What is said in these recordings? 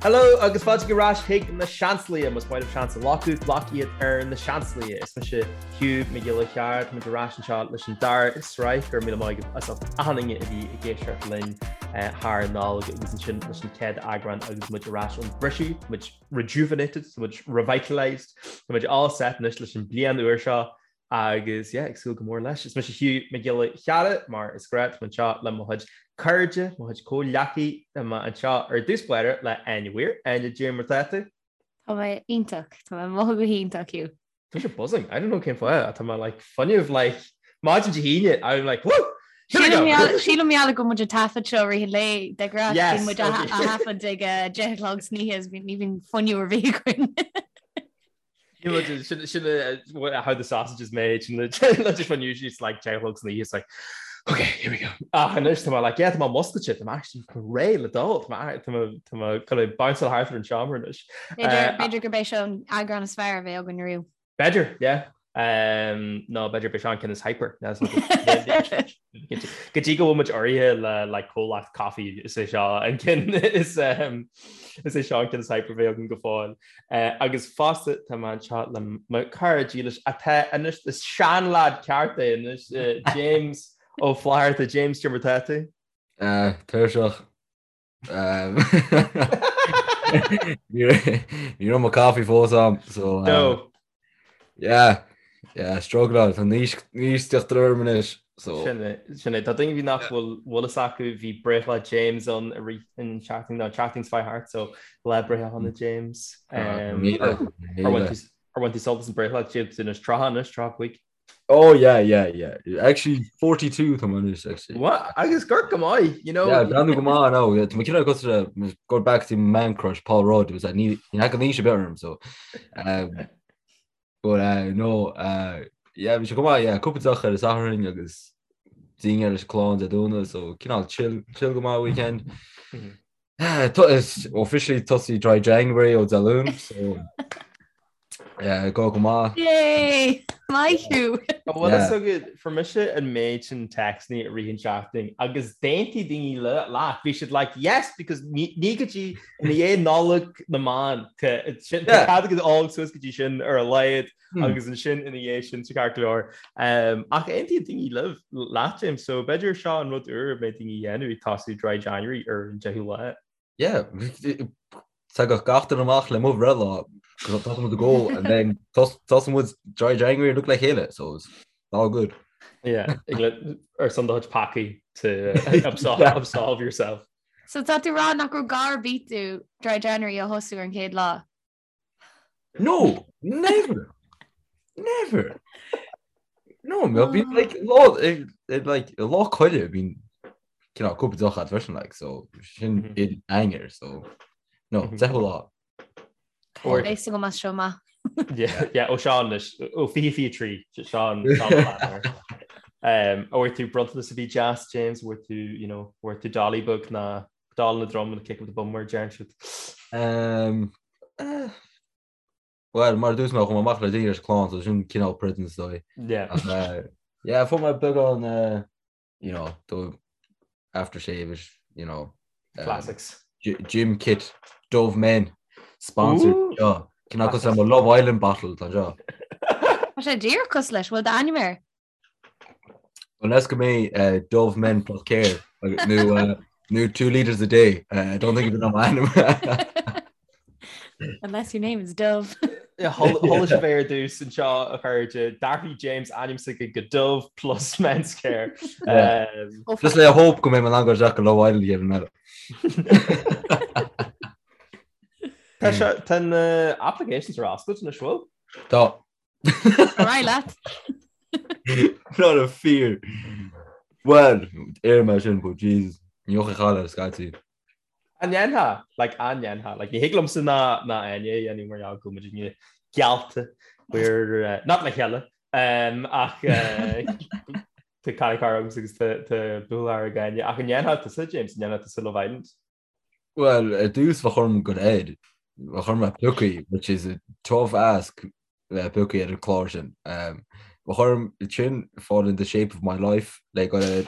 Hello agus fáilte ar ais chuig na Seansálaithe, más maith libh seans a ghlacadh, glac iad ar na Seansálaithe. Is mise Hugh Mac Giolla Chearra, tá muid ar ais anseo leis an dara sraith, go raibh míle maith agaibh as ucht achan duine a bhí ag éisteacht linn thar an Nollaig agus ansin leis an chéad eagrán agus muid ar ais ón briseadh, tá muid rejuvenated, tá muid revitalised, tá muid all set anois leis an bliain úr seo Agus yeah, ag súil go mór leis. Is mise Hugh Mac Giolla Chearra, mar is gnách, tá mé anseo le mo chuid cairde, mo chuid comhghleacaithe, tá mé anseo ar dtús báire le Áine Weir. Áine, cad é mar tá tú? Tá mé iontach, tá mé ag mothú go hiontach, Hugh. Tá mise buzzing, I don't know cén fáth, tá mé like fuinneamh like maidin Dé hAoine, I'm like woo! Here we go! Sílim mar gheall go bhfuil muid ag taifead seo i rith an lae de ghnáth, bíonn muid á thaifead ag 10 a chlog san oíche, ní bhíonn fuinneamh ar bith againn. Sin sin how the sausage is made sin just when usually it's like 10 o'clock san oíche it's like okay here we go ach anois tá mé like yeah tá mé muscailte tá mé actually réidh le dul tá mé tá mé tá mé chun é bounce thart ar an seomra anois. B'fhéidir gurb é seo an eagrán is fearr a bheidh againn riamh. B'fhéidir yeah um, nó b'fhéidir b'é seo an ceann is hyper Go dtí go bhfuil muid urraithe le like comhlacht caife is é seo an ceann is um, is é seo an ceann is hyper a bheidh againn go fóill. Uh, agus fosta tá mé anseo le mo chara dílis atá anois is seanleaid ceart é anois uh, James Ó Flatharta James cad é mar tá tú? Uh, tuirseach. Um, ní raibh mo coffee fós a'm, so um, No. yeah, yeah, struggle tá níos níos teacht orm anois, so Sin é, sin é. Tá daoine bhí nach bhfuil bhfuil fhios acu bhí breithlá James ann i rith an tseachtain nó an tseachtain seo thart so lá breithe shona James. Um, míle, ar ar bhain míle. tú ar bhain tú sult as an breithlá James anois 30 anois 35. Oh yeah, yeah, yeah. Actually 42 tá mé anois actually. What? Agus gur go maith, you know. Yeah, breathnú go maith now. Yeah, tá mé cineál cosúil le go back to man crush Paul Rudd was that ní ní thagann aois ar bith orm so. Um, but uh, no, uh, yeah, bhí sé go maith, yeah, cúpla deoch ar an Satharn agus dinnéar leis an clann Dé Domhnaigh so cineál chill chill go maith weekend. Mm -hmm. Is officially tosaí Dry January ó Dé Luain, so go go maith. Yay! Maith thú! An bhfuil fhios agat, fuair mise an méid sin téacsanna i rith an tseachtain agus d'aontaigh daoine leat, bhí siad like yes because ní go dtí i ndiaidh Nollaig na mBan, tá cead agat ól suas go dtí sin ar a laghad agus ansin ina dhiaidh sin sa ceart go leor. Ach aontaíonn daoine libh, leat James, so b'fhéidir seo an rud úr a mbeidh daoine a dhéanamh ag tosú Dry January ar an 10ú lá. Yeah, tagadh gach duine amach le mo bhreithlá, tá muid ag ól and then tosaíonn muid Dry January look le chéile, so it's all good. Yeah, ar son do chuid peacaí to absolve, absolve yourself. So tá tú ag rá nach raibh gá ar bith duit Dry January a thosú ar an chéad lá? No, never. Never. No, mé bhí like lá like lá coille bíonn cineál cúpla deoch agat freisin like so sin mm -hmm. in anger so no mm -hmm. lá. Beidh go maith seo maith. Yeah, yeah, ó Seán leis ó fi fi trí Seán Um, bhfuair tú bronntanas a bhí deas James bhfuair tú you know, bhfuair tú dolly beag ná Doll in the drum and a kick up the bum mar a deireann siad. Um, eh, Well, mar a dúirt mé chuaigh mé amach le dinnéar leis an clann, so sin cineál present is dóigh. Yeah. Ach, eh, yeah, fuair mé beagán, eh, you know, do aftershave is, you know, um, Classics. gym kit, Dove Men, sponsored. Ooh. Seo, cineál cosúil le mo Love Island bottle, tá seo. Tá sé díreach cosúil leis, bhfuil d'ainm air? Unless go mbeidh Dove Men plus Care nó nó 2 litres a day. I don't think it'll be m'ainm. Unless your name is Dove. Chuala sibh é ar dtús anseo a chairde d'athraigh James ainm s'aige go Dove plus Men's Care. Just le hope go mbeidh mé in ann dul isteach go Love Island an chéad eile. Tá tá na applications ar oscailt anois bhfuil? Tá. Ar aghaidh leat. Not a fear. Well, ar mé sin, but Jesus, ní fhochaidh chaile scaití. An ndéanfá? Like, an ndéanfá? Like, ní thig liomsa ná ná Áine a dhéanamh mar gheall go bhfuil muidne geallta we're uh, not le chéile um, ach uh, tá cara cara agam agus tá tá buachaill ag Áine ach an ndéanfá tusa James, an ndéanfá tusa Love Island? Well, ar dtús bheadh orm go air, bheadh orm bheith pioctha, which is a tough ask bheith pioctha ar an chlár sin. Um, bheadh orm sin fall in the shape of my life le go air.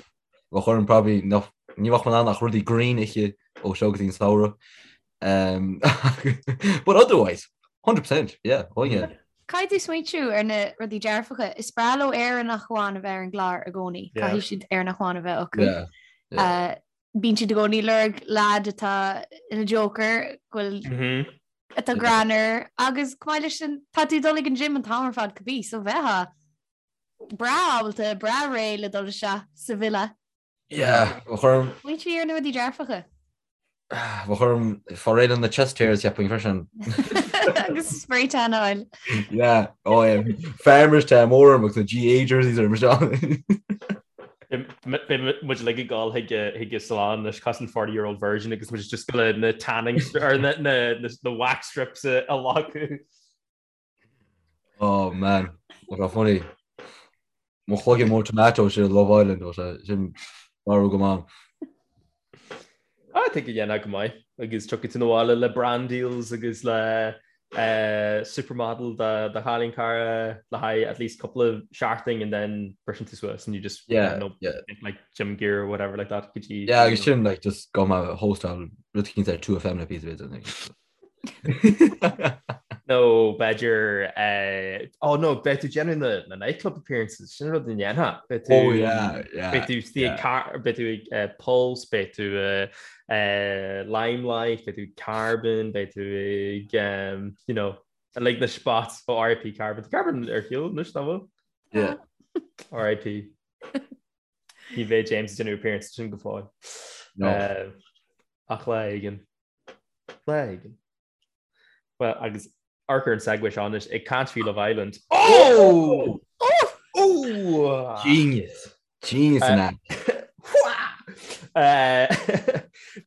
Bheadh orm probably nach, ní bheadh mé in ann ach rudaí green a ithe ó seo go dtí an samhradh. Um, but otherwise, 100%, yeah, oh yeah. Caithfidh tú smaointiú ar na rudaí dearfacha. Is breá leo Éireannach amháin a bheith ar an gclár i gcónaí. Caithfidh siad Éireannach amháin a bheith acu. Yeah, yeah. Uh, bíonn siad i gcónaí ag lorg lad atá ina joker, go bhfuil Mm -hmm. atá greannmhar agus chomh maith leis sin tá tú ag dul ag an gym an t-am ar fad cibé, so bheifeá breá ábalta, breá réidh le dul isteach sa villa. Yeah, bheadh orm. Smaointigh ar na rudaí dearfacha. Bheadh orm fáil réidh le na chest hairs cheapfainn freisin. Agus spray tan a fháil. Yeah, oh yeah. Farmers tan mór orm agus na GAA jerseys orm seo. Beidh muid uilig ag dul chuig chuig an salon leis cosúil 40 year old virgin agus muid just le na tanning or na na na wax strips a leagadh. Oh man, what a funny. Mo chloigeann mór tomato sin Love Island ó sé sin marú go maith. I think go ndéanfá go maith agus tiocfaidh tú abhaile le brand deals agus le uh, supermodel do do chailín cara le haghaidh at least couple of seachtain and then briseann tú suas and you just yeah, know, yeah. like gym gear or whatever like that go dtí Yeah, agus sin like just go ma hostáil rud éicint ar 2FM le píosa b'fhéidir. Nó b'fhéidir eh, oh no, beidh tú déanamh na na nightclub appearances, sin rud a ndéanfá. Beidh tú Oh yeah, yeah. Beidh tú istigh ag car beidh tú ag eh, Pulse, beidh tú eh, eh, Limelight, beidh tú ag Carbon, beidh tú ag um, you know, like na spots ó RIP Carbon. Tá Carbon ar shiúl anois nach bhfuil? Yeah. RIP. Ní bheidh James ag déanamh appearance sin go fóill. No. Eh, ach lá éigin. Lá éigin. Well, agus amharc ar an segue seo anois ag caint faoi Love Island. Oh! Oh! Oh! Genius. Genius in that.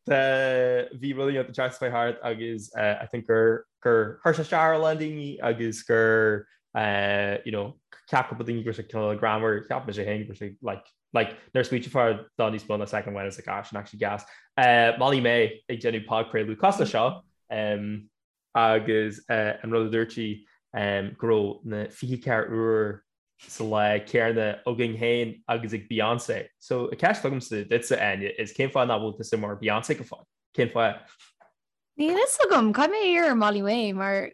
Bhí rudaí an tseachtain seo thart agus I think gur gur chuir sé isteach ar a lán daoine agus gur you know ceap cúpla daoine go raibh sé cineál greannmhar, cheap mise féin go raibh sé like Like, nuair a smaointeofá dá níos mó ná soicind amháin is like, ah, sin actually gas. Uh, Molly May ag déanamh podchraoladh cosúil leis seo um, agus uh, an rud a dúirt sí um, go raibh na 24 uair sa lá céanna againn féin agus ag Beyoncé. So, an ceist agamsa duitse Áine is cén fáth nach bhfuil tusa mar Beyoncé go fóill? Cén fáth? Níl fhios agam, caithfidh mé iarraidh ar Molly May mar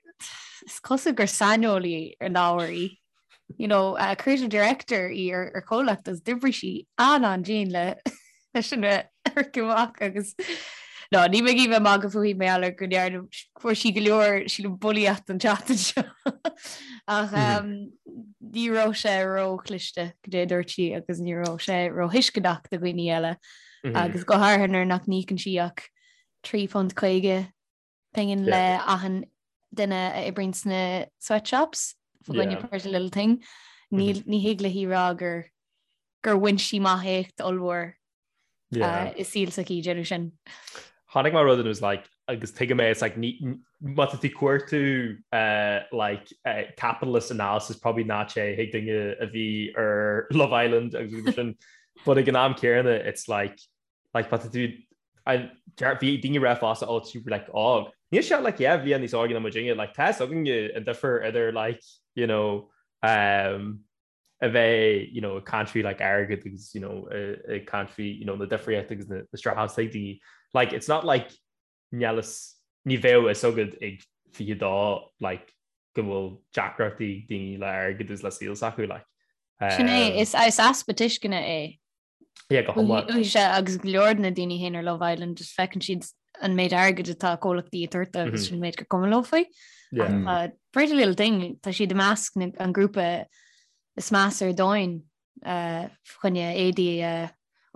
is cosúil gur saineolaí ar an ábhar í. You know, uh, creative director í ar, ar chomhlacht agus d'oibrigh sí an-an-dian le leis sin a amharc amach agus No, ní mé bheith magadh fúithi mar gheall ar go ndearna fuair sí go leor sílim bulaíocht an tseachtain seo. Ach um, ní raibh sé róchliste cad é a dúirt sí agus ní raibh sé róthuisceanach do dhaoine eile agus go háirithe nuair nach n-íocann sí ach £3.50 pingin le achan duine a oibríonn sna sweatshops fá choinne Pretty Little Thing. Ní ní thig léi rá gur gur bhain sí amach éacht ollmhór i saol s'aici ag déanamh sin. Chonaic mé rud and it was like agus tuigim é it's like ní má tá tú ag cuartú like capitalist analysis probably ná téigh chuig duine a bhí ar Love Island agus rudaí mar sin but ag an am céanna it's like like má tá tú bhí daoine ag rá fosta oh tú like óg. Níl sé like yeah bhí níos óige ná muidinne like tá a fhios againne an difear idir like you know um, a bheith you know ag caint faoi like airgead agus you know ag caint faoi you know na difríochtaí agus na na struggles ag daoine like it's not like níl fhios ní bheadh a fhios agat ag 22 like go bhfuil deacrachtaí ag daoine le airgead agus le saol s'acu like Sin é, um, is is easpa tuisceana é. Yeah, go hiomlán. Uaithe agus go leor de na daoine féin ar Love Island just feiceann siad an méid airgid atá comhlachtaí ag tabhairt dóibh agus sin an méid gur cuma leo faoi. Yeah. Ach, uh, Pretty Little Thing, tá siad i measc na- an grúpa is measa ar domhan uh, fá choinne éadaí a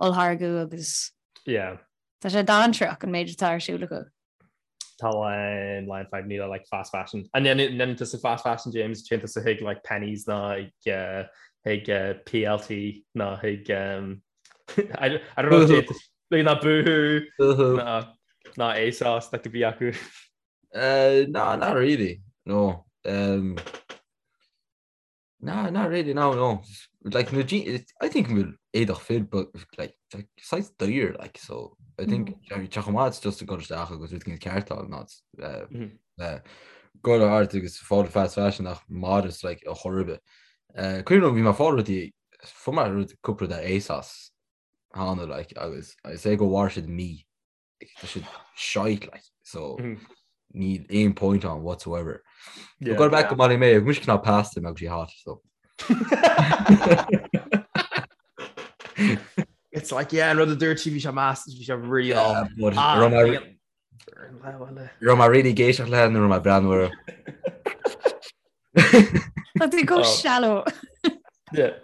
olltháirgeadh agus Yeah. tá sé dainséarach an méid atá ar siúl acu. Tá line line 5 níle like fast fashion. And then then tusa fast fashion James téann tusa chuig like Penneys ná ag uh, chuig uh, PLT ná chuig um, I, I don't know if like ná Boohoo Boohoo. ná ná ASOS like a bhí acu. Uh, no, not really. No. Um, No, not really, no, no. Like, no, I think bhfuil éadach fir, but like, like saghas daor, like, so I think mm. tá chomh maith just ag dul isteach agus rud éigin ceart a fháil ná uh, go art agus fáil fast fashion ach modest like a chor ar bith. Uh, Cuimhin liom bhí mé ag fáil rudaí fuair mé rud cúpla rud ar ASOS cheana like agus I say go mhair siad mí. tá siad shite like so níl aon point ann whatsoever. Yeah. Go back go Molly Mae, mise cineál past him agus sí hot so. It's like yeah, an rud a dúirt sí bhí sé meas bhí sé really Yeah, but Ah, raibh mé- raibh mé really ag éisteacht léi nó raibh mé ag breathnú uirthi. Tá tú go Oh. shallow. Yeah.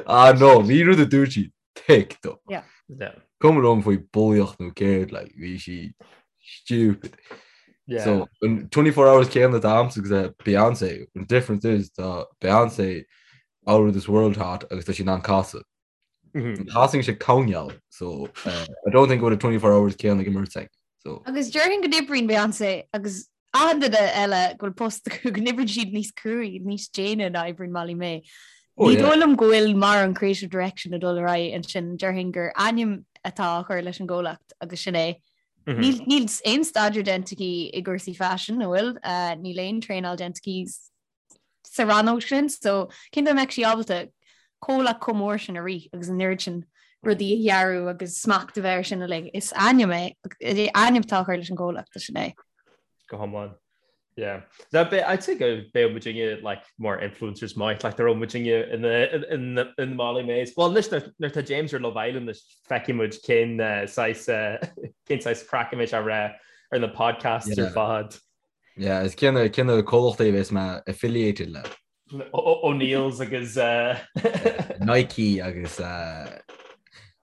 Ah no, bhí rud a dúirt sí thick though. Yeah. Yeah. Cuma liom faoi bulaíocht nó céard like bhí sí stupid. Yeah. So an 24 hours céanna atá agamsa agus uh, Beyonce, an difference is tá Beyonce out of this world hot agus tá sí in ann casadh. Mhm. Casann sí coinneal, so uh, I don't think go bhfuil 24 hours céanna ag an mbeirt againn. So Agus déarfainn go n-oibríonn Beyonce agus achan duine eile go bhfuil post acu go n-oibríonn siad níos cruaí, níos déine ná oibríonn Molly Mae. Oh, Ní yeah. dóigh liom go bhfuil mórán creative direction ag dul ar aghaidh ansin, déarfainn gur ainm atá á chur leis an gcomhlacht agus sin é. Mhm. Níl níl aon staidéar déanta aici i gcúrsaí faisin, an bhfuil? Uh, níl aon traenáil déanta aici sa rannóg sin, so cén dóigh a mbeadh sí ábalta comhlacht chomh mór sin a rith agus an oiread sin rudaí a dhearadh agus smacht a bheith air sin uilig. Is ainm é, ainm atá á chur leis an gcomhlacht, sin é. Go hiomlán. Yeah. That be, I'd say go beidh muidinne like mar influencers maith, like there muidinne in the in the in the Molly Mays. Well, anois nuair tá James ar Love Island anois feicfidh muid cén uh, saghas uh, cén saghas craic a mbeidh sé ag rá ar na podcasts ar Yeah. fad. Yeah, is cén cén comhlachtaí a bheas mé affiliated le? O'Neill's agus uh, Nike agus uh,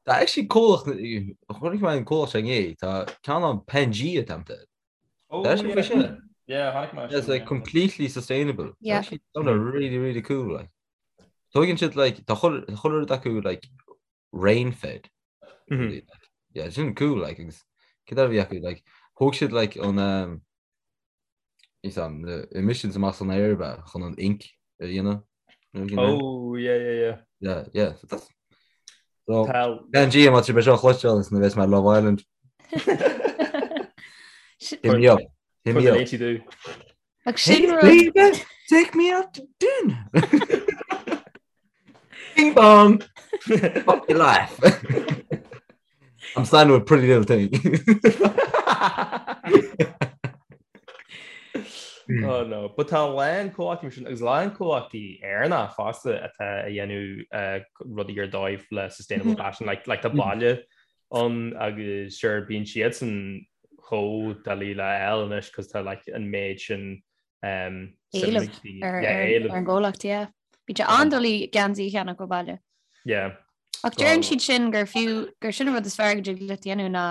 tá actually comhlacht chonaic mé an comhlacht sin inné, tá ceann ann Pangea tamta. Oh, Tá sin faoi sin. Yeah, chonaic mé It's like completely sustainable. Yeah. Actually, sounded really really cool like. Tógann siad like tá chuile chuile rud acu like rain fed. Mhm. Yeah, sin cool like agus céard a bhí acu like thóg siad like an um, is an na emissions amach san aer ba chun an ink a dhéanamh. You know what I mean? Oh, yeah, yeah, yeah. Yeah, yeah. So that's so Tá Pangea má tá sibh é seo a chloisteáil is nuair a bheas mé ar Love Island. Hit me up. Hit me up. tú. Ach sin rud Hey, baby, take me out to dinner. Bing bong. Fuck your life. I'm signed with Pretty Little Thing. Oh no, but tá a lán comhlachtaí sin agus a lán comhlachtaí Éireannacha fosta atá ag déanamh eh, rudaí ar dóigh le sustainable fashion, like, like tá Baile ann agus sure bíonn siadsan chomh doiligh le fháil anois cos tá like an méid sin um, Éileamh ar yeah, ar éileamh. ar an gcomhlacht, yeah. Bíonn sé an-doiligh geansaí a cheannach ó Baile. Yeah. Ach deireann siad sin gur fiú gur sin an rud is fearr go dtig leat dhéanamh ná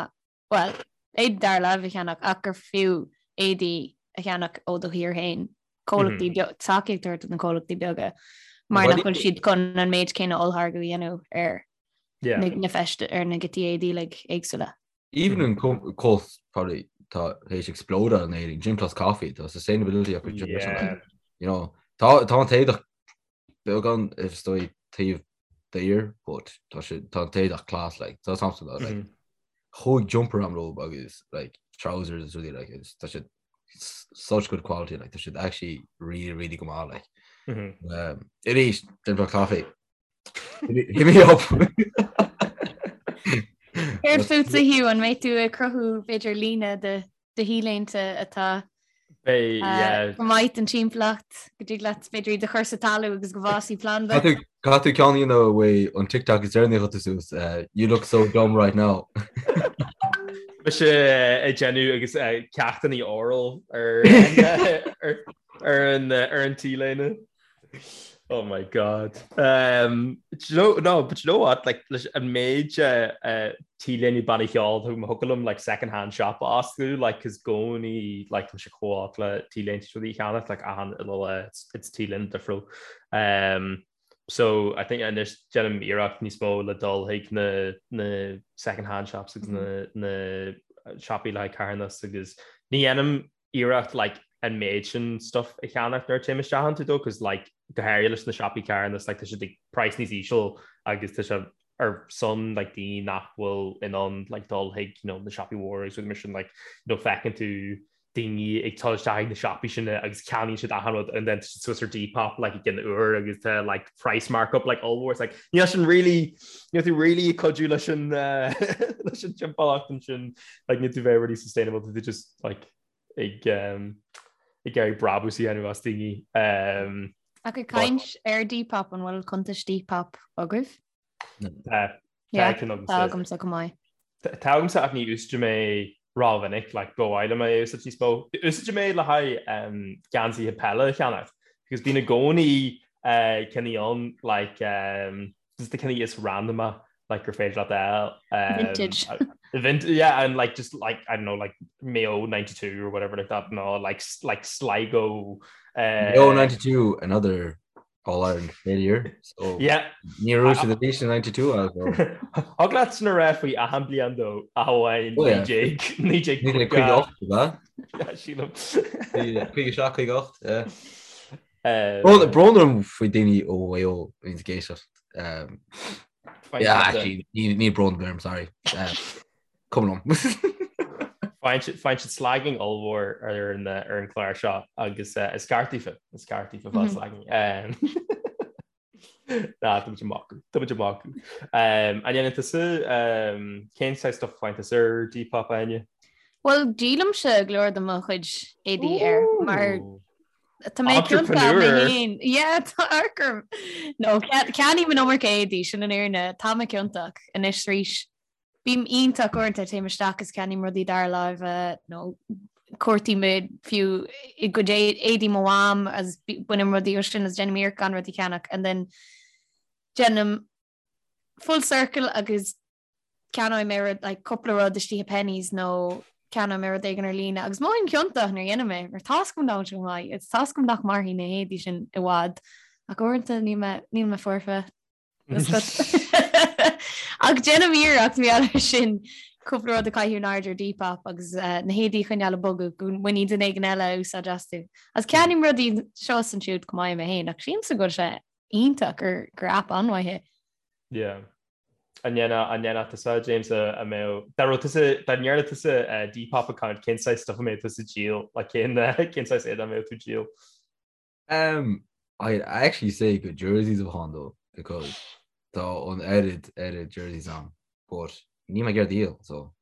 well, éadaí dara láimhe a cheannach ach gur fiú éadaí a cheannach ó do thír féin. Comhlachtaí beag tacaíocht a thabhairt do na comhlachtaí beaga mar Well, nach bhfuil siad chun an méid céanna ollmhargadh a dhéanamh ar Yeah. na na feiste ar na giotaí éadaí like, éagsúla. Even an comhlacht probably tá théis explode in Éirinn, Gym Plus Coffee, tá sustainability acu Gym Plus Yeah. You know, tá tá an t-éadach beagán is dóigh taobh daor, but tá sé tá an t-éadach class like tá something like Mhm. chuaigh jumper am leo agus like trousers is really like it's tá siad such good quality like tá siad actually really really go maith like. Mhm. Um, arís Gym Plus Coffee. Hit me up. Céard fútsa Hugh an mbeidh tú ag cruthú b'fhéidir líne de de t-léinte atá Beidh, yeah. go maith don timpeallacht go dtig leat b'fhéidir iad a chur sa talamh agus go bhfásfaidh planda. Caithfidh tú ceann a dhéanamh uaidh an TikTok is deireanaí a chuir tú suas, you look so dumb right now. Mise ag déanamh agus ceachtanna oral ar ar an ar an t-léine. Oh my God. Um, do you know, no, but you know what? Like, leis an méid uh, uh, t-léine banna cheoil thiocfadh liom like second hand shop a oscailt, like, cos i gcónaí like, tá sé chomh olc le t-léinte rudaí a cheannach, like, achan uile lá, it's, it's t-léine difriúil. Um, so I think anois déanaim iarracht níos mó le dul chuig na, na second hand shops agus na, na siopaí le haghaidh carthanas agus ní dhéanaim iarracht like an méid sin stuff a cheannach nuair a téim isteach iontu though cos like go háirithe leis na siopaí carthanas like tá siad ag price níos íseal agus tá sé ar son like daoine nach bhfuil in ann like dul chuig you know na siopaí mhóra agus rudaí mar sin like you know feiceann tú daoine ag dul isteach ag na siopaí sin agus ceannaíonn siad achan rud and then tá siad suas ar Depop like i gcionn uair agus tá like price markup like ollmhór. It's like níl sin really níl tú really ag cuidiú leis an leis an timpeallacht ansin like níl tú bheith really sustainable tá tú just like ag um, ag iarraidh brabús a dhéanamh as daoine. Um, Ach ag caint ar Depop an bhfuil cuntas Depop agaibh? Tá. Tá agamsa go maith. Tá agamsa ach ní úsáidim é rómhinic, like ba mhaith liom é a úsáid níos mó. Úsáidim é le haghaidh geansaithe peile a cheannacht because bíonn i gcónaí cinn ann like just na cinn is random like gur féidir leat a fháil. Vintage. Vintage, yeah, and like just like I don't know like Mayo 92 or whatever like that no like like Sligo. Mayo 92 another All Ireland failure. So yeah. Ní raibh siad arís in 92 as well. Thig leat sin a rá faoi achan bliain dó ach amháin 1958 Sílim. 57 58. Brón orm faoi daoine ó Mhaigh Eo a bhíonn ag éisteacht. Yeah, actually, ní brón orm, sorry. Cuma liom. Faigheann siad slagging ollmhór ar an ar an chlár seo agus is ceart daofa, is ceart daofa fáil slagging. Ná, tá muid ag magadh, tá muid ag magadh. An ndéanann tusa, cén saghas stuff a faigheann tusa ar Depop, Áine? Bhuel, díolaimse go leor de mo chuid éadaí air mar Tá mé ciontach mé féin. Yeah, tá orm. No, ceannaím an iomarca éadaí sin an fhírinne, tá mé ciontach anois arís. Bím iontach uaireanta, téim isteach is ceannaím rudaí dara láimhe nó cuartaím fiú i gcuid éadaí mo mham agus bainim rudaí ó sin agus déanaim iarracht gan rudaí a cheannach and then déanaim full circle agus ceannóidh mé rud like cúpla rud istigh i Penneys nó ceannóidh mé rud éigin ar líne agus mothaím ciontach nuair a dhéanaim é mar tá's agam nach bhfuil sé go maith agus tá's agam nach mairfidh na héadaí sin i bhfad ach uaireanta níl mé níl mé foirfe. Ach déanaim iarracht mar gheall air sin cúpla rud a chaitheamh in airde ar Depop agus na héadaí a choinneáil ag bogadh go mbainfidh duine éigin eile úsáid astu. Agus ceannaím rudaí seo is ansiúd go maith mé féin ach sílimse go bhfuil sé iontach gur gur aip an-mhaith é. Yeah. An ndéanfadh an ndéanfadh tusa James a a mbeadh dá raibh tusa dá ndearna tusa Depop account cén saghas stuff a mbeadh tusa ag díol like cén cén saghas éadaí a mbeadh tú ag díol? Um, I actually say go jerseys a bheadh ann though because tá an oiread oiread jerseys ann but níl mé ag iarraidh díol so.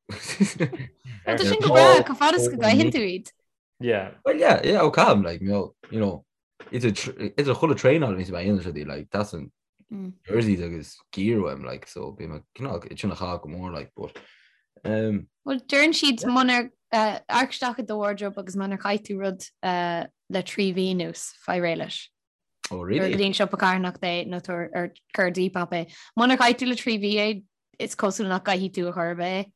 Tá sin go breá chomh fada is go gcaitheann tú iad. Yeah. Well yeah, yeah, ó caithim like you know, you know idir idir chuile traenáil a bhíonns mé a dhéanamh rudaí like that's an mm. jerseys agus gear uaim like so bím ag cineál sin a chaitheamh go mór like but um, Well deireann siad munar uh, amharc isteach i do wardrobe agus munar chaith tú rud uh, le 3 mhí anuas faigh réidh leis. Oh really? Go dtí an siopa carthanachta é nó tabhair ar cuir ar Depop é. Munar chaith tú le 3 mhí é is cosúil nach gcaithfidh tú ar chor ar bith é.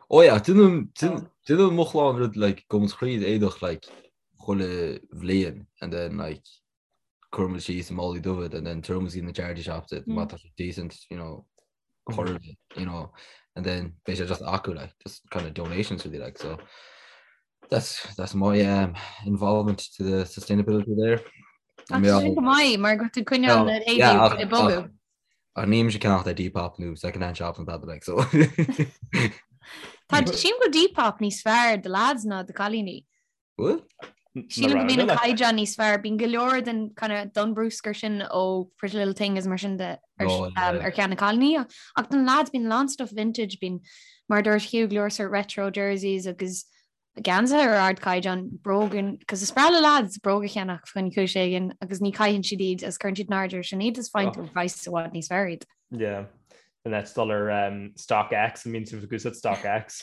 Oh yeah, déanann déanann mo chlann rud like gabhann tríd éadach like chuile bhliain and then like cuireann muid síos i málaí dubha and then tabhaireann muid na charity shops it má tá sé decent you know chur you know and then beidh sé just acu like just kind of donations really like so that's that's my um, involvement to the sustainability there. Sin go maith mar go tú coinneáil na héadaí ag bogadh. Ach níl mise ag ceannacht ar Depop nó second hand shops an tada like so. Tá sílim go Depop níos fearr do lads ná do cailíní. Bhfuil? Sílim go mbíonn an caighdeán níos fearr, bíonn go leor den kind of don bruscar sin ó Pretty Little Thing is mar sin de ar, oh, yeah. um, ar cheann na cailíní. Ach don lads bíonn a lán stuff vintage, bíonn mar dúirt Hugh go leor sort retro jerseys agus geansaithe ar ardchaighdeán bróga, cos is breá le lads bróga a cheannach faoi chúis éigin agus ní chaitheann siad iad agus cuireann siad in airde ar sin iad is faigheann tú oh. praghas i bhfad níos fearr iad. Yeah. And that's dul ar um, StockX, an mbíonn sibh ag úsáid StockX.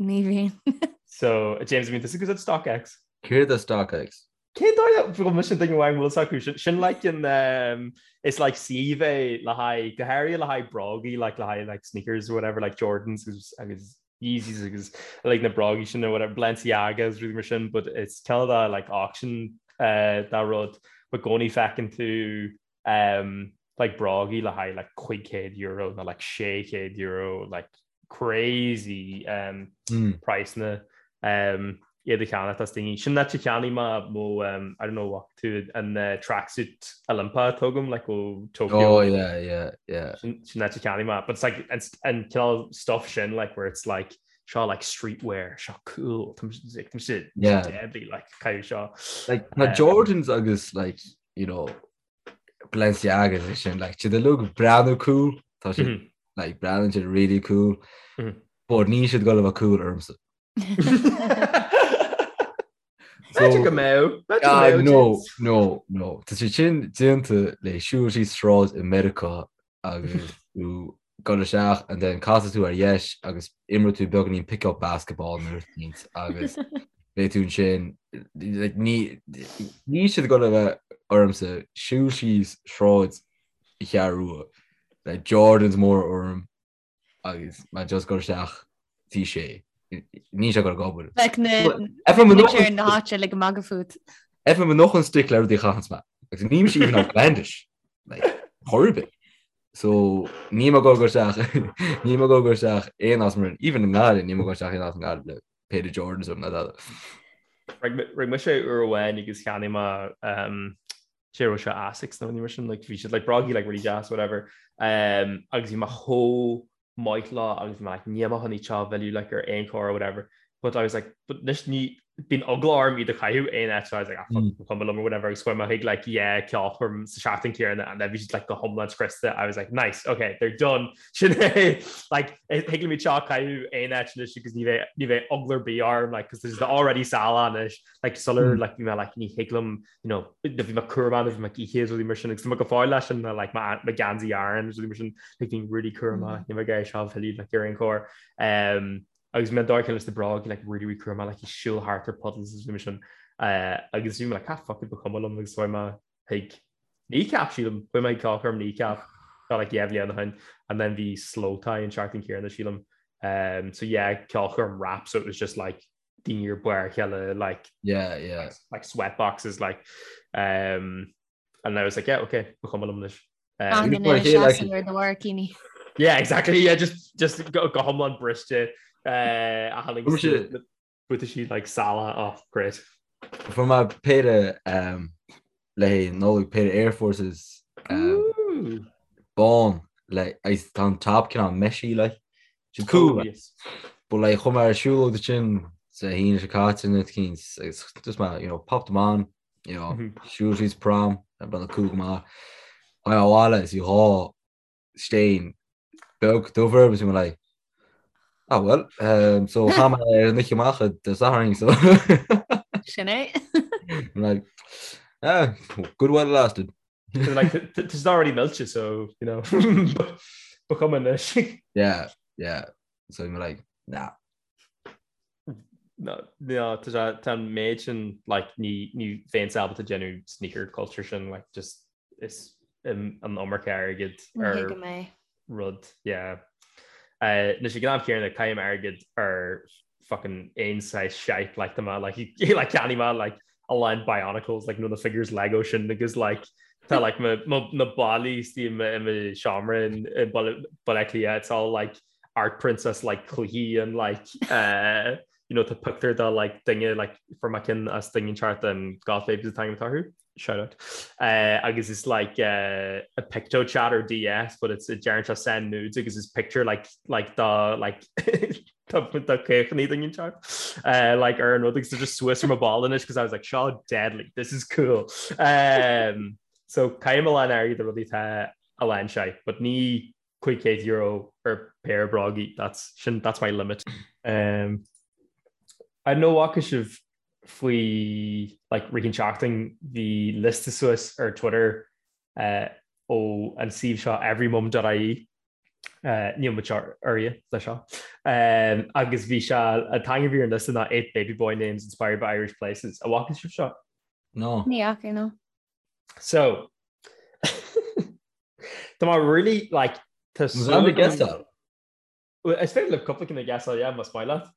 Ní bhíonn. So, James, an mbíonn tusa ag úsáid StockX? Céard é StockX? Cén dóigh a bhfuil mise an duine amháin a bhfuil fhios acu? Sin like an um, is like suíomh é le haghaidh go háirithe le haghaidh brógaí like le haghaidh like sneakers or whatever like Jordans agus agus Yeezys agus like na brógaí sin or whatever Balenciaga agus rudaí mar sin but it's cineál de like auction uh, dá rud but i gcónaí feiceann tú um, like brógaí le haghaidh like €500 nó like €600 like crazy um, mm. praghsanna um, iad a cheannacht as daoine. Sin áit a cheannaigh mé mo um, I don't know what tú an uh, tracksuit Olympia atá agam like ó Tokyo. Oh yeah yeah yeah. Sin áit a cheannaigh mé but it's like an, an cineál stuff sin like where it's like Seo like streetwear, seo cool, tá sé deadly like caitheamh seo. Like na Jordans agus like you know Balenciagas is sin like siad uilig ag breathnú cool, tá siad mm-hmm. like breathnaíonn siad really cool, mm -hmm. but níl siad ag gabháil a bheith cool ormsa. B'fhéidir go mbeadh. Ah, no, no, no. Tá siad sin déanta le siúl síos sráid i Meiriceá agus tú dul isteach and then casfaidh tú ar dheis agus imreoidh tú beagáinín pick up basketball nó rud éicint agus beidh tú ansin like, ní níl siad ag gabháil a bheith ormsa siúl síos sráid i Cheathrú Rua le Jordans mór orm agus mé just dul isteach tí sé níl sé ag gabháil ag obair. Bheadh na muintir na háite le go magadh fút. FM an noch an stick le rudaí a chaitheanns mé. Agus níl mise even outlandish. Like, chor ar bith. So níl mé ag gabháil isteach níl mé ag gabháil isteach aon áit mar even i nGaillimh níl mé ag gabháil isteach aon áit i nGaillimh le pair of Jordans orm ná dada. Rinne mise uair amháin agus cheannaigh mé um, sé raibh sé Asics nó ní mar sin like, bhí siad like, brógaí like, really deas whatever um, agus bhí mé chomh maith leo agus bhí mé like, níl mé chun iad seo a mhilleadh like, ar aon chor or whatever but I was like but anois ní bíonn eagla orm iad a chaitheamh aon áit so I was like ah, fuck, ba chuma liom or whatever agus chuaigh mé chuig like yeah ceolchoirm sa seachtain céanna and then bhí siad like go hiomlán scriosta I was like nice okay they're done sin é like thig liom iad seo a chaitheamh aon áit anois agus ní bheidh ní bheidh eagla ar bith orm like cos there's already salach anois like sular like bhí mé like ní thig liom you know bhí mé cúramach bhí mé oíche is rudaí mar sin agus tá mé go fóill leis sin like mo gheansaí Aran is rudaí mar sin like bhí really cúramach níl mé ag iarraidh seo a mhilleadh like ar aon chor um, agus mé dár leis na bróga like really really cúramach like siúl thart ar puddles is rudaí mar sin uh, agus bhí mé like ah fuck it ba chuma liom agus chuaigh mé chuig Kneecap sílim chuaigh mé chuig ceolchoirm Kneecap tá like yeah bhliain ó shin and then bhí Slowthai an seachtain céanna sílim um, so yeah ceolchoirm rap so it was just like daoine ar barr a chéile like yeah yeah like, like sweat boxes like um and I was like yeah okay ba chuma liom anois um, yeah exactly yeah just just go go hiomlán briste uh a tháinig buataisí like salach oh great Fuair mé péire um, le haghaidh Nollaig péire Air Forces um, bán le agus tá an top cineál meshy like. Siad cool. Oh, yes. But like chuaigh mé ar siúlóid ansin sa hAoine seo caite nó cinn agus just mé you know popped them on you know mm -hmm. siúl síos prom ag breathnú cool go maith. Tháinig mé abhaile is bhí dhá stain beag dubh orthu agus bhí mé like ah well um, so chaith mé ar an oíche amach Dé Sathairn so Sin é. I'm like ah good while it lasted. So, like it's already millte so you know ba chuma anois. Yeah yeah so I'm like nah. No, no, tá tá an méid sin like ní ní bheinnse ábalta déanamh sneaker culture sin like just is an iomarca airgid ar rud yeah. Anois ag an am céanna caithim airgead ar fucking aon saghas shite like tá mé like like cheannaigh mé like a lán Bionicles like nó na figures Lego sin agus like tá like mo mo na ballaí istigh i mo i mo seomra in i Baile Baile Átha Cliath it's all like art princess like cluichí and like uh, you know tá pictiúr de like duine like fuair mé ceann as duine inteacht an Goth Babes an t-ainm atá orthu shout out uh, agus is like uh, a picto chat ar DS but it's a deireann sé send nudes agus is picture like like the like tá caochaní duine inteacht uh, like ar an rud agus just suas ar mo bhalla anois because I was like seo deadly this is cool um, so caithim a lán airgid ar rudaí atá a lán sé but ní €500 ar péire brógaí that's sin that's my limit. Um, I don't know an bhfaca sibh faoi like rith an tseachtain bhí liosta suas ar Twitter uh, ó an suíomh seo everymum.ie uh, níl muid urraithe le seo um, agus bhí sé an t-ainm a bhí ar an liosta ná 8 baby boy names inspired by Irish places. An bhfaca sibh seo? No. Ní fhaca no. So Tá mé really like tá súil agam- guessáil. Well, Is féidir libh cúpla ceann a ghuessáil, yeah, más maith leat.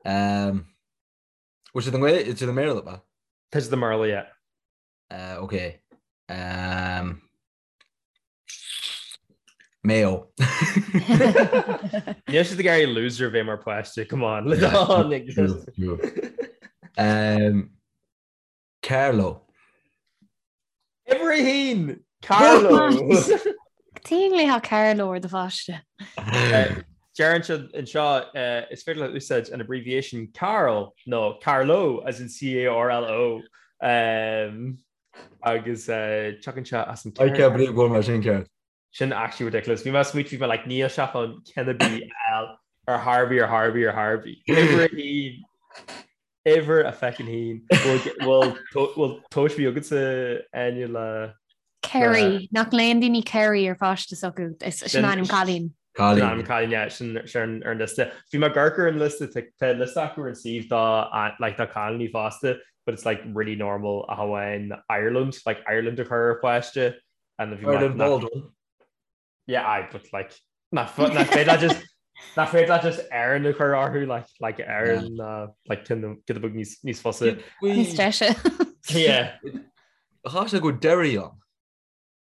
Um, bhfuil siad i nGaeilge, siad i mBéarla, ba? Tá siad i mBéarla, yeah. Uh, okay. Um, Mayo. Níl siad ag iarraidh loser bheith mar páiste, come on. True, true. Um, Carlow. Uimhir a haon! Carlow! Cad chuige a nglaofá Carlow ar do pháiste. Deireann siad anseo is féidir leat úsáid an abbreviation Carl nó Carlo as in C-A-R-L-O agus tiocfaidh sé as an I can't believe go bhfuil mar sin ceart. Sin actually ridiculous. Bhí mé ag smaoitiú bhí mé like níl sé chun ceann ar bith a fháil ar chor ar bith ar chor ar bith ar chor ar bith. Uimhir a haon. Uimhir a feckin haon. Bhfuil tomhas ar bith agatsa Áine le Kerry, nach nglaonn daoine Kerry ar pháiste s'acu, sin ainm cailín. Sin ainm cailín, yeah, sin sin ar an liosta. Bhí mé ag amharc ar an liosta, tá liosta acu ar an suíomh do like do cailíní fosta, but it's like really normal ach amháin Ireland, like Ireland a chur ar pháiste and bhí mé Ireland Baldwin. Yeah, aye, but like nach féidir leat just nach féidir leat just Éireann a chur orthu like like Éireann uh, like cin giota beag níos níos fusa. Níos deise. Yeah. Chá sé go Derry an?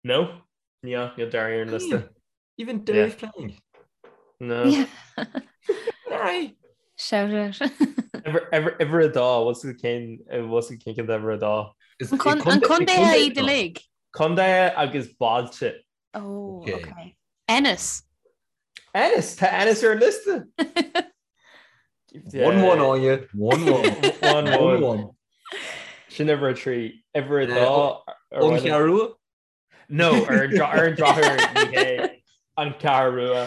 No, níl níl Derry ar an liosta. Even Derry yeah. playing. No. Yeah. Derry. Shout out. Uimhir a dó, what's the cén what's the cén cén uimhir a dó? An contae iad uilig? Contae agus bailte. Oh, okay. okay. Ennis. Ennis Tá Ennis ar an liosta. 1-1 Áine 1-1 1-1 Sin uimhir a 3 uimhir a dó An Cheathrú Rua? No ar an drochuair ní hé an Cheathrú Rua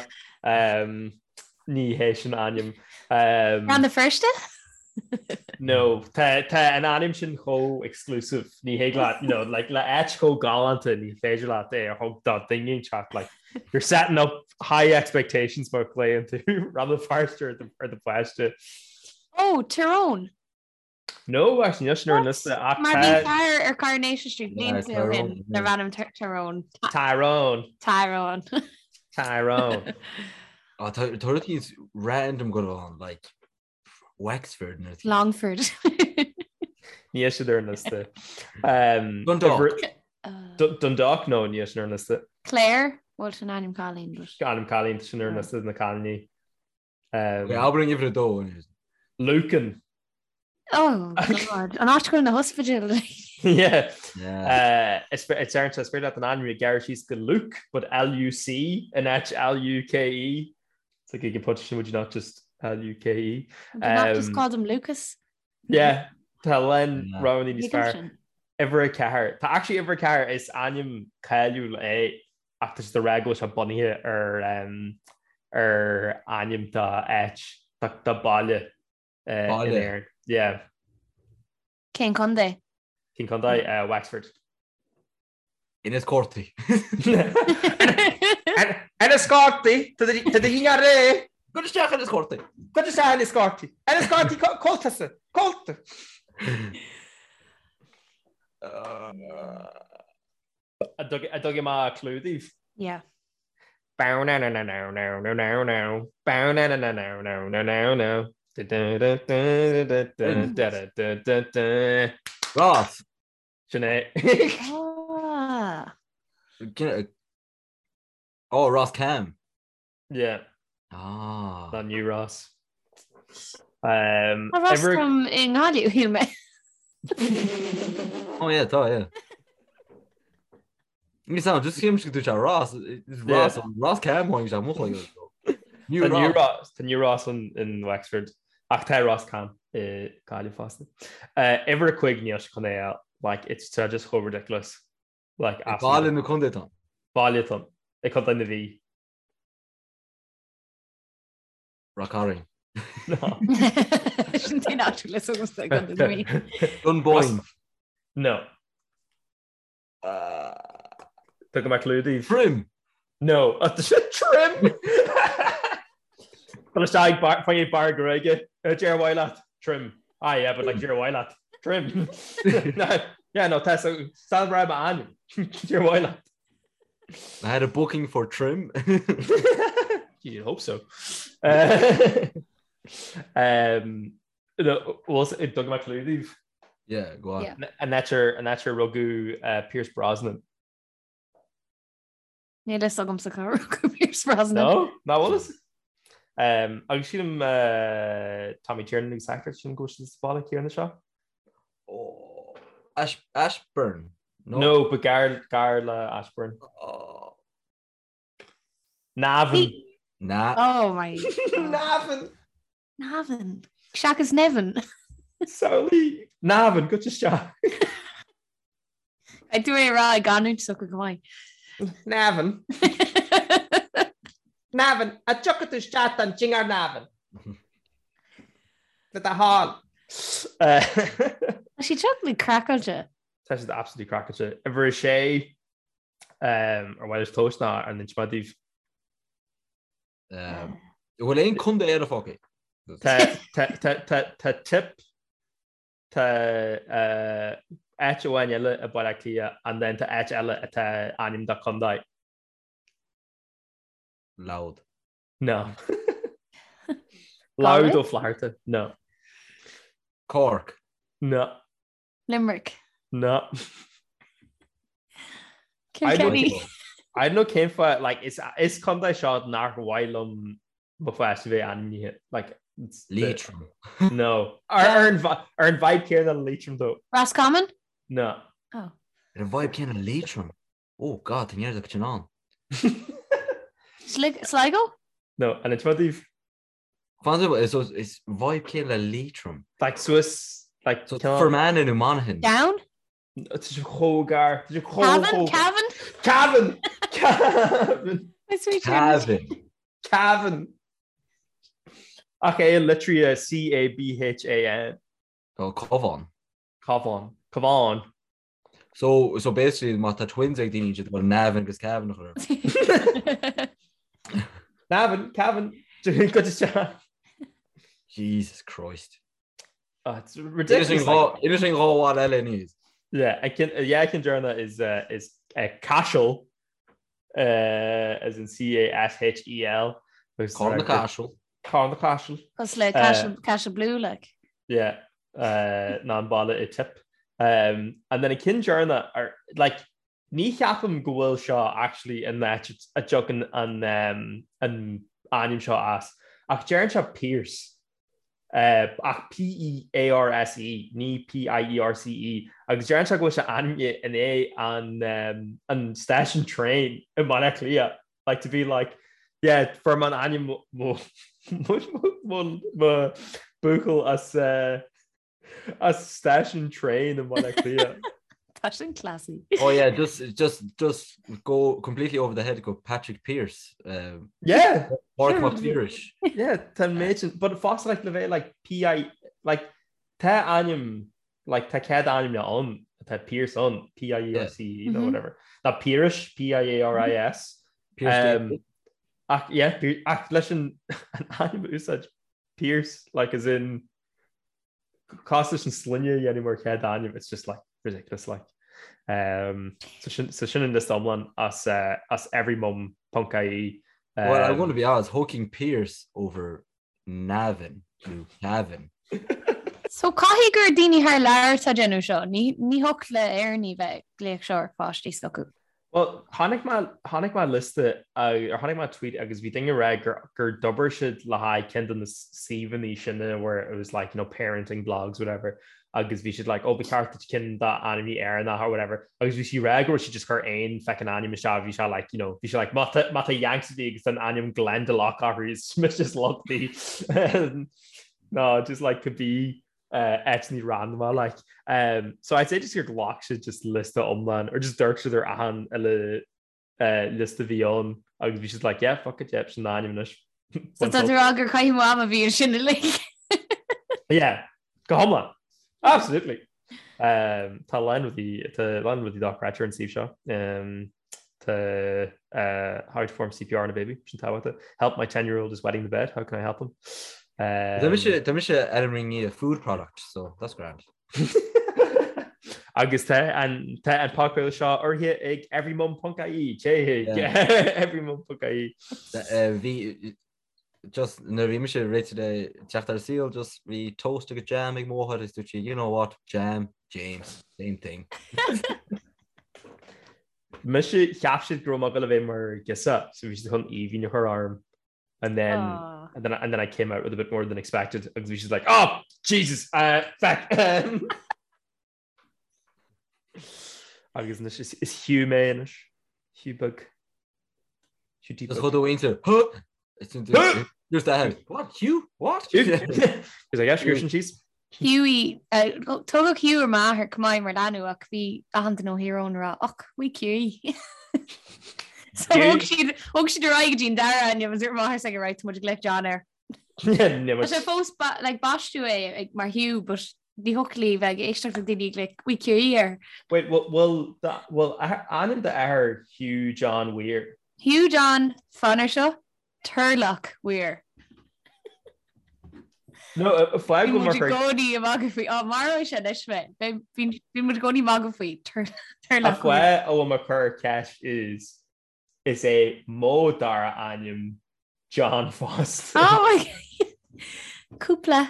ní hé sin ainm. Rann na Feirste? No, tá an ainm sin chomh exclusive, ní thig leat, you know, like, le áit chomh galánta ní féidir leat é a thug do dhuine inteacht, like, you're setting up high expectations má ghlaonn tú Rann na Feirste ar do, ar do pháiste. Oh, Tyrone! No, actually, níl sin ar an liosta ach Mar bhí fear ar Coronation Street blianta ó shin darbh ainm Tyrone. Tyrone. Tyrone. Tyrone. Tá rudaí random go ann, like, Wexford nó Longford. Níl siad ar an liosta. Dundalk. Dundalk no níl sin ar an liosta. Clare? Bhuel sin ainm cailín. Ainm cailín sin ar an liosta na cailíní. Abair an uimhir a dó. Lucan. Oh God. An áit go bhfuil na hospidéil. Yeah. Is ar an is féidir leat an ainm a ghearradh síos go Luke, but L-U-C in áit L-U-K-E. It's like you can put sin would you not just L-U-K-E. Would you not just call them Lucas? Yeah, tá a lán roghanna níos fearr. Uimhir a ceathair. Tá actually uimhir a ceathair is ainm cáiliúil é ach tá siad ag rá go bhfuil sé bunaithe ar um, ar ainm do áit do baile uh, in Éirinn. Yeah. Cén contae? Cén contae? Uh, Wexford. Inis Córthaidh. Inis Córthaidh, Tá do dhinnéar réidh. Gabh isteach Inis Córthaidh. Gabh isteach Inis Córthaidh. Inis Córthaidh cóltasa. Cólta. An dtugaim a clue daoibh? Yeah. Bow na na na na na na na na Bow na na na na na na na na Da da da da da da da da da da da Ross. Sin é. Ah. Oh, Ross Cam. Yeah. Ah. Not New Ross. Um, Tá Ross Cam i nGaillimh, shíl mé. Oh yeah, tá, yeah. Ní sound, just shílim go dúirt sé Ross, Ross, Ross Cam tháinig sé mo chloigeann. New Ross. Tá New Ross in Wexford ach tá Ros Cam i Gaillimh fosta. Uimhir a cúig níl sé chun é a like it's tá just chomh ridiculous. Like Baile nó contae atá ann? Baile atá ann i Contae na Mí. Ráth Cairn. No. Sin t-aon áit le agamsa i gContae na Mí. Dunboyne. No. Tugaim clue daoibh. Trim! No. Trim! Tá isteach fá bar gruaige. Deir mhaith leat. Trim. Ah yeah, but like deir mhaith leat. Trim. Yeah, no, tá san ra ainm. Deir mhaith leat. I had a booking for trim. You'd hope so. Uh, um, Dug mé clue daoibh. Yeah, go on. Yeah. An áit ar an áit ar rugadh uh, Pierce Brosnan. Níl fhios agamsa cá rugadh Pierce Brosnan. No, ná bhfuil fhios? Um, agus sílim uh, Tommy Tiernan agus actor sin go bhfuil siad sa bhaile céanna seo. Oh, Ash, Ashburn. No, no but gar, gar le Ashburn. Oh. Navan. Na. Oh my. Navan! Navan. Seachas Nevin. Samhlaigh Navan, goitse isteach. Caithfidh tú é a rá i gcanúint s'acu go maith. Navan. Navan, a dtiocfaidh tú isteach don dinnéar Navan. Le do thoil. Tá siad seo craiceáilte. Tá siad absolutely craiceáilte. Uimhir a sé ar mhaith libh tomhas ná an inseoidh mé daoibh. An bhfuil aon contae eile fágtha? Tá Tipp tá áit amháin eile i Baile Átha Cliath and then tá áit eile atá ainm do contae. Louth. No. Louth Ó Flatharta. No. Cork. No. Limerick. No. Kilkenny. I don't know cén fáth like is is contae seo nach mhaith liom mo pháiste bheith ainmnithe like Leitrim. No. Ar ar an ar an vibe céanna le Leitrim though. Roscommon? No. Oh. Ar an vibe céanna le Leitrim. Oh God, tá neart acu sin ann. Sligo? No, an inseoidh mé daoibh? Fan is is vibe céanna le Leitrim. Like suas like So Fermanagh nó Monaghan. Down? Tá sé chomh gar. Tá sé chomh Cavan? Cavan? Cavan! Cavan! Cavan. Cavan! Ach é litrithe C-A-B-H-A-N. Oh, Cabhán. Cabhán. Cabhán. So, so basically má tá twins ag daoine siad bhfuil Navan agus Cavan a chur. Navan, Cavan, go isteach. Jesus Christ. Oh, it's ridiculous. Inis sin dhá bhaile eile níos. Yeah, I can, yeah, I can journal is uh, is uh, Cashel uh, as in C-A-S-H-E-L. Carn na Caiseal. Carn na Caiseal. Cos le Cashel, Cashel Blue like. Yeah, uh, ná an baile i Tipp. Um, and then an ceann deireanach ar like ní cheapaim go bhfuil seo actually an áit a dtagann an um, an ainm seo as. Ach deireann sé Pearse. Uh, ach P-E-A-R-S-E, ní P-I-E-R-C-E, agus deireann sé go bhfuil sé ainmnithe i ndiaidh an, um, an stáisiún traein i mBaile Átha Cliath. Like to be like, yeah, fuair mé an ainm mo, mo, mo, mo buachaill as, uh, as stáisiún traein i mBaile Átha Cliath. Tá sin classy. Oh yeah, just just just go completely over the head go Patrick Pearse. Um, yeah. Pádraig Mac Piarais. Yeah, tá méid sin, but fós like le bheith like P.I. like tá ainm like tá cead ainm ann tá Pearse ann P-I-E-R-C-E nó whatever. Ná Piarais P-I-A-R-I-S. Pearse Um, ach yeah, ach leis an an ainm a úsáid Pearse like as in cosúil leis an sloinne a dhéanamh mar chéad ainm it's just like ridiculous like. Um, so sin so sin an liosta iomlán as uh, as everymum.ie. Well, I'm Um, going to be honest, thiocfainn Pearse over Navan nó Cavan. So caithfidh gur daoine thar lear atá ag déanamh seo, ní thiocfadh le Éireannaigh bheith ag glaoch seo ar pháistí s'acu. Well, chonaic mé, chonaic mé liosta, or chonaic mé tweet agus bhí duine ag rá gur, gur d'obair siad le haghaidh ceann de na suíomhanna sin where it was like, you know, parenting blogs, whatever, agus bhí siad like, oh, ba cheart duit ceann d'ainmneacha Éireannacha or whatever, agus bhí sí ag rá go raibh siad just cur aon feckin ainm isteach, bhí sé like, you know, bhí sé like, má tá, má tá Yanks ag agus an ainm Glendalough orthu, is just luchtaí. No, just like could be uh, áiteanna random like. Um, so I'd say just gur ghlac siad just liosta iomlán or just dúirt siad ar achan uile uh, liosta bhí ann agus bhí siad like, yeah, fuck it, yep, sin an ainm anois. So tá tú ag rá gur caitheamh ama a bhí ansin uilig. Yeah, go hiomlán. Absolutely. Um, tá lán rudaí tá lán rudaí dochreidte ar an suíomh seo. Um, tá uh, how to perform CPR on a baby, sin tábhachtach. Help my 10 year old is wetting the bed, how can I help him? Tá mise tá mise ar an ringi food product, so that's grand. Agus tá an tá an podchraoladh seo urraithe ag everymum.ie Téigh everymum.ie. Bhí just nuair a bhí mise réitithe le teacht ar an saol, just bhí toast agus jam ag mo mháthair agus dúirt sí, you know what, jam, James, same thing. Mise, cheap siad go raibh mé ag dul a bheith mar ghirseach, so bhí siad chun Aoibhinn a chur orm. And then, Aw. and then, and then I came out with a bit more than expected agus bhí siad like, oh, Jesus, uh, feck. Agus anois is, is Hugh mé anois. Hugh beag. Hugh Just chomh dóinte, huh? Just that. What? Hugh? What? Is I guess sin síos. Hughie, tugadh Hugh ar m'athair chomh maith mar leanbh ach bhí achan duine ó Thír Eoghain ag rá och, wee Hughie. So thug siad thug siad ar aghaidh go dtí an dara ainm agus dúirt m'athair s'aige right tá muid ag glaoch John air. Tá sé fós like baisteadh é ag mar Hugh but ní thiocfadh léi bheith ag éisteacht le daoine ag glaoch wee Hughie air. Wait, bhfuil bhfuil ainm d'athar Hugh John Weir? Hugh John fan air seo Turlough Weir. No, fág go mar i gcónaí ag magadh faoi. Á, maróidh sé anois mé. Bhí muid i gcónaí ag magadh faoi Turlough Weir. An fáth a bhfuil mé ag cur ceist is is é mo dara ainm John fosta. Oh my God. Cúpla.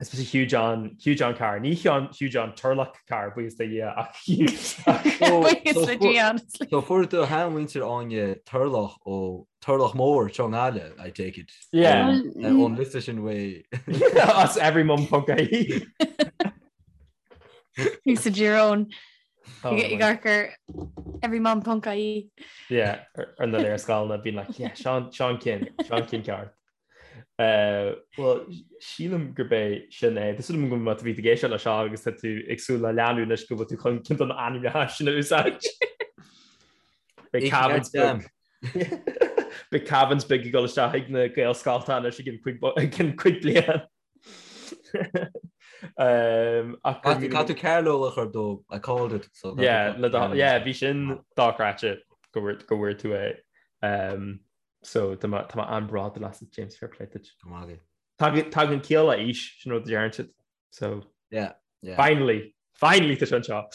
Is mise Hugh John, Hugh John Carr. Ní Hugh John Turlough Carr, buíochas do Dhia, ach Hugh. Buíochas le Dia, honestly. So fuair do sheanmhuintir Áine Turlough ó Turlach Mór Chonghaile, I take it. Yeah. Ón liosta sin uaidh. As everymum.ie. Bhí sa Dírón. Ag amharc ar everymum.ie. Yeah, ar na léarscáileanna bíonn like, yeah, Seán Seán Cinn, Seán Cinn ceart. Bhuel, sílim gurb é sin é. Tá súil agam go má bhí tú ag éisteacht leis seo agus tá tú ag súil le leanúint anois go bhfuil tú chun ceann de na ainmneacha sin a úsáid. Beidh Cavan's beag. Beidh Cavan's beag ag dul isteach ag na Gaelscoilte anois i gceann cúig bliain. Caithfidh tú Carlow a chur dó, I called it. So yeah, yeah, bhí sin dochreidte go bhfuair tú é. So tá mé tá mé an-bhródúil asat James fair play duit. Go maith agat. Tagann tagann ciall le aois sin rud a deireann siad. So Yeah, yeah. finally, finally tá sé anseo.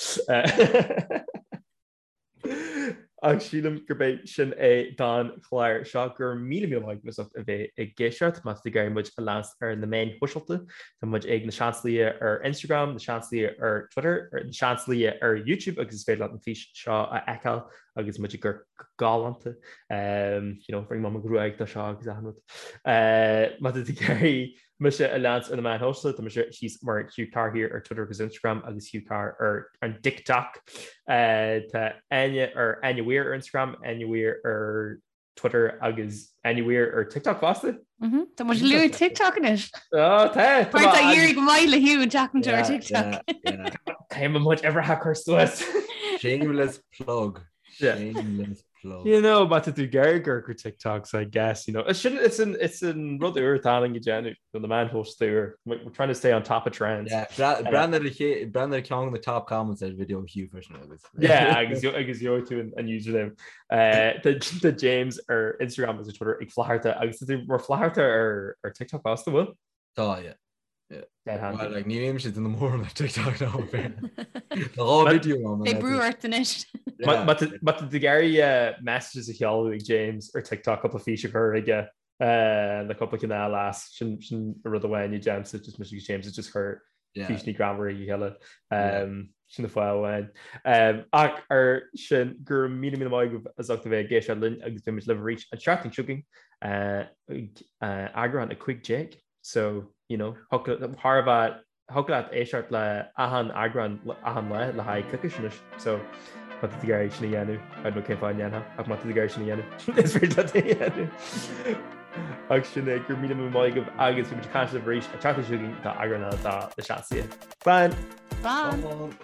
Ach sílim gurb é sin é don chlár seo go raibh míle míle maith agat as ucht a bheith ag éisteacht má tá tú ag iarraidh muid a leanacht ar na meáin shóisialta tá muid ag Na Seansálaithe ar Instagram, Na Seansálaithe ar Twitter, Na Seansálaithe ar YouTube agus is féidir leat an fís seo a fheiceáil agus muid ag amharc go galánta. You know, rinne mé mo ghruaig do seo agus achan rud. Má tá tú ag iarraidh mise a leanacht ar na meáin shóisialta, tá mise thíos mar Hugh Carr here ar Twitter agus Instagram agus Hugh Carr ar an TikTok. Tá Áine ar Áine Weir ar Instagram, Áine Weir ar Twitter agus Áine Weir ar TikTok fosta. Tá muid ag luaigh TikTok anois. Ó tá! Mar tá éirithe go maith le Hugh an tseachtain seo ar TikTok. Caithfidh muid uimhreacha a chur suas. Shameless plug. Shameless plug. You know, má tá tú ag iarraidh amharc ar TikToks, I guess, you know. It's sin, it's an, it's an rud úr atá ann go déanamh, na meáin shóisialta úr. We're trying to stay on top of trends. Yeah, breathnaigh ar ceann de na top comments ar video Hugh freisin agus. Yeah, agus agus gheobhaidh tú an username. Tá James ar Instagram agus ar Twitter ag Flatharta agus tá tú mar Flatharta ar ar TikTok fosta, bhfuil? Tá, yeah. Yeah. Dead handy. Well, like, ní bhímse ag déanamh mórán ar TikTok ná Tá dhá video ann. Beidh brú ort anois. Yeah. Má tá tú ag iarraidh messages a sheoladh ag James ar TikTok cúpla fís a chur aige le cúpla cineál as sin sin rud amháin a déanaimse just mise agus James just cur físeanna greannmhara ag a chéile. Sin an fáth amháin. Ach ar sin go raibh míle míle maith agaibh as ucht a bheith ag éisteacht linn agus beidh muid libh arís an tseachtain seo chugainn ag eagrán 15. So, you know, thar a bheith Thiocfadh leat éisteacht le achan eagrán achan lá le haghaidh coicís anois. So, má tá tú ag iarraidh sin a dhéanamh, I don't know cén fáth a ndéanfá, ach má tá tú ag iarraidh sin a dhéanamh, is féidir leat é a dhéanamh. Ach sin é, go raibh míle míle maith agaibh agus beidh muid ag caint libh arís an tseachtain seo chugainn do eagrán eile de Na Seansálaithe. Slán! Slán!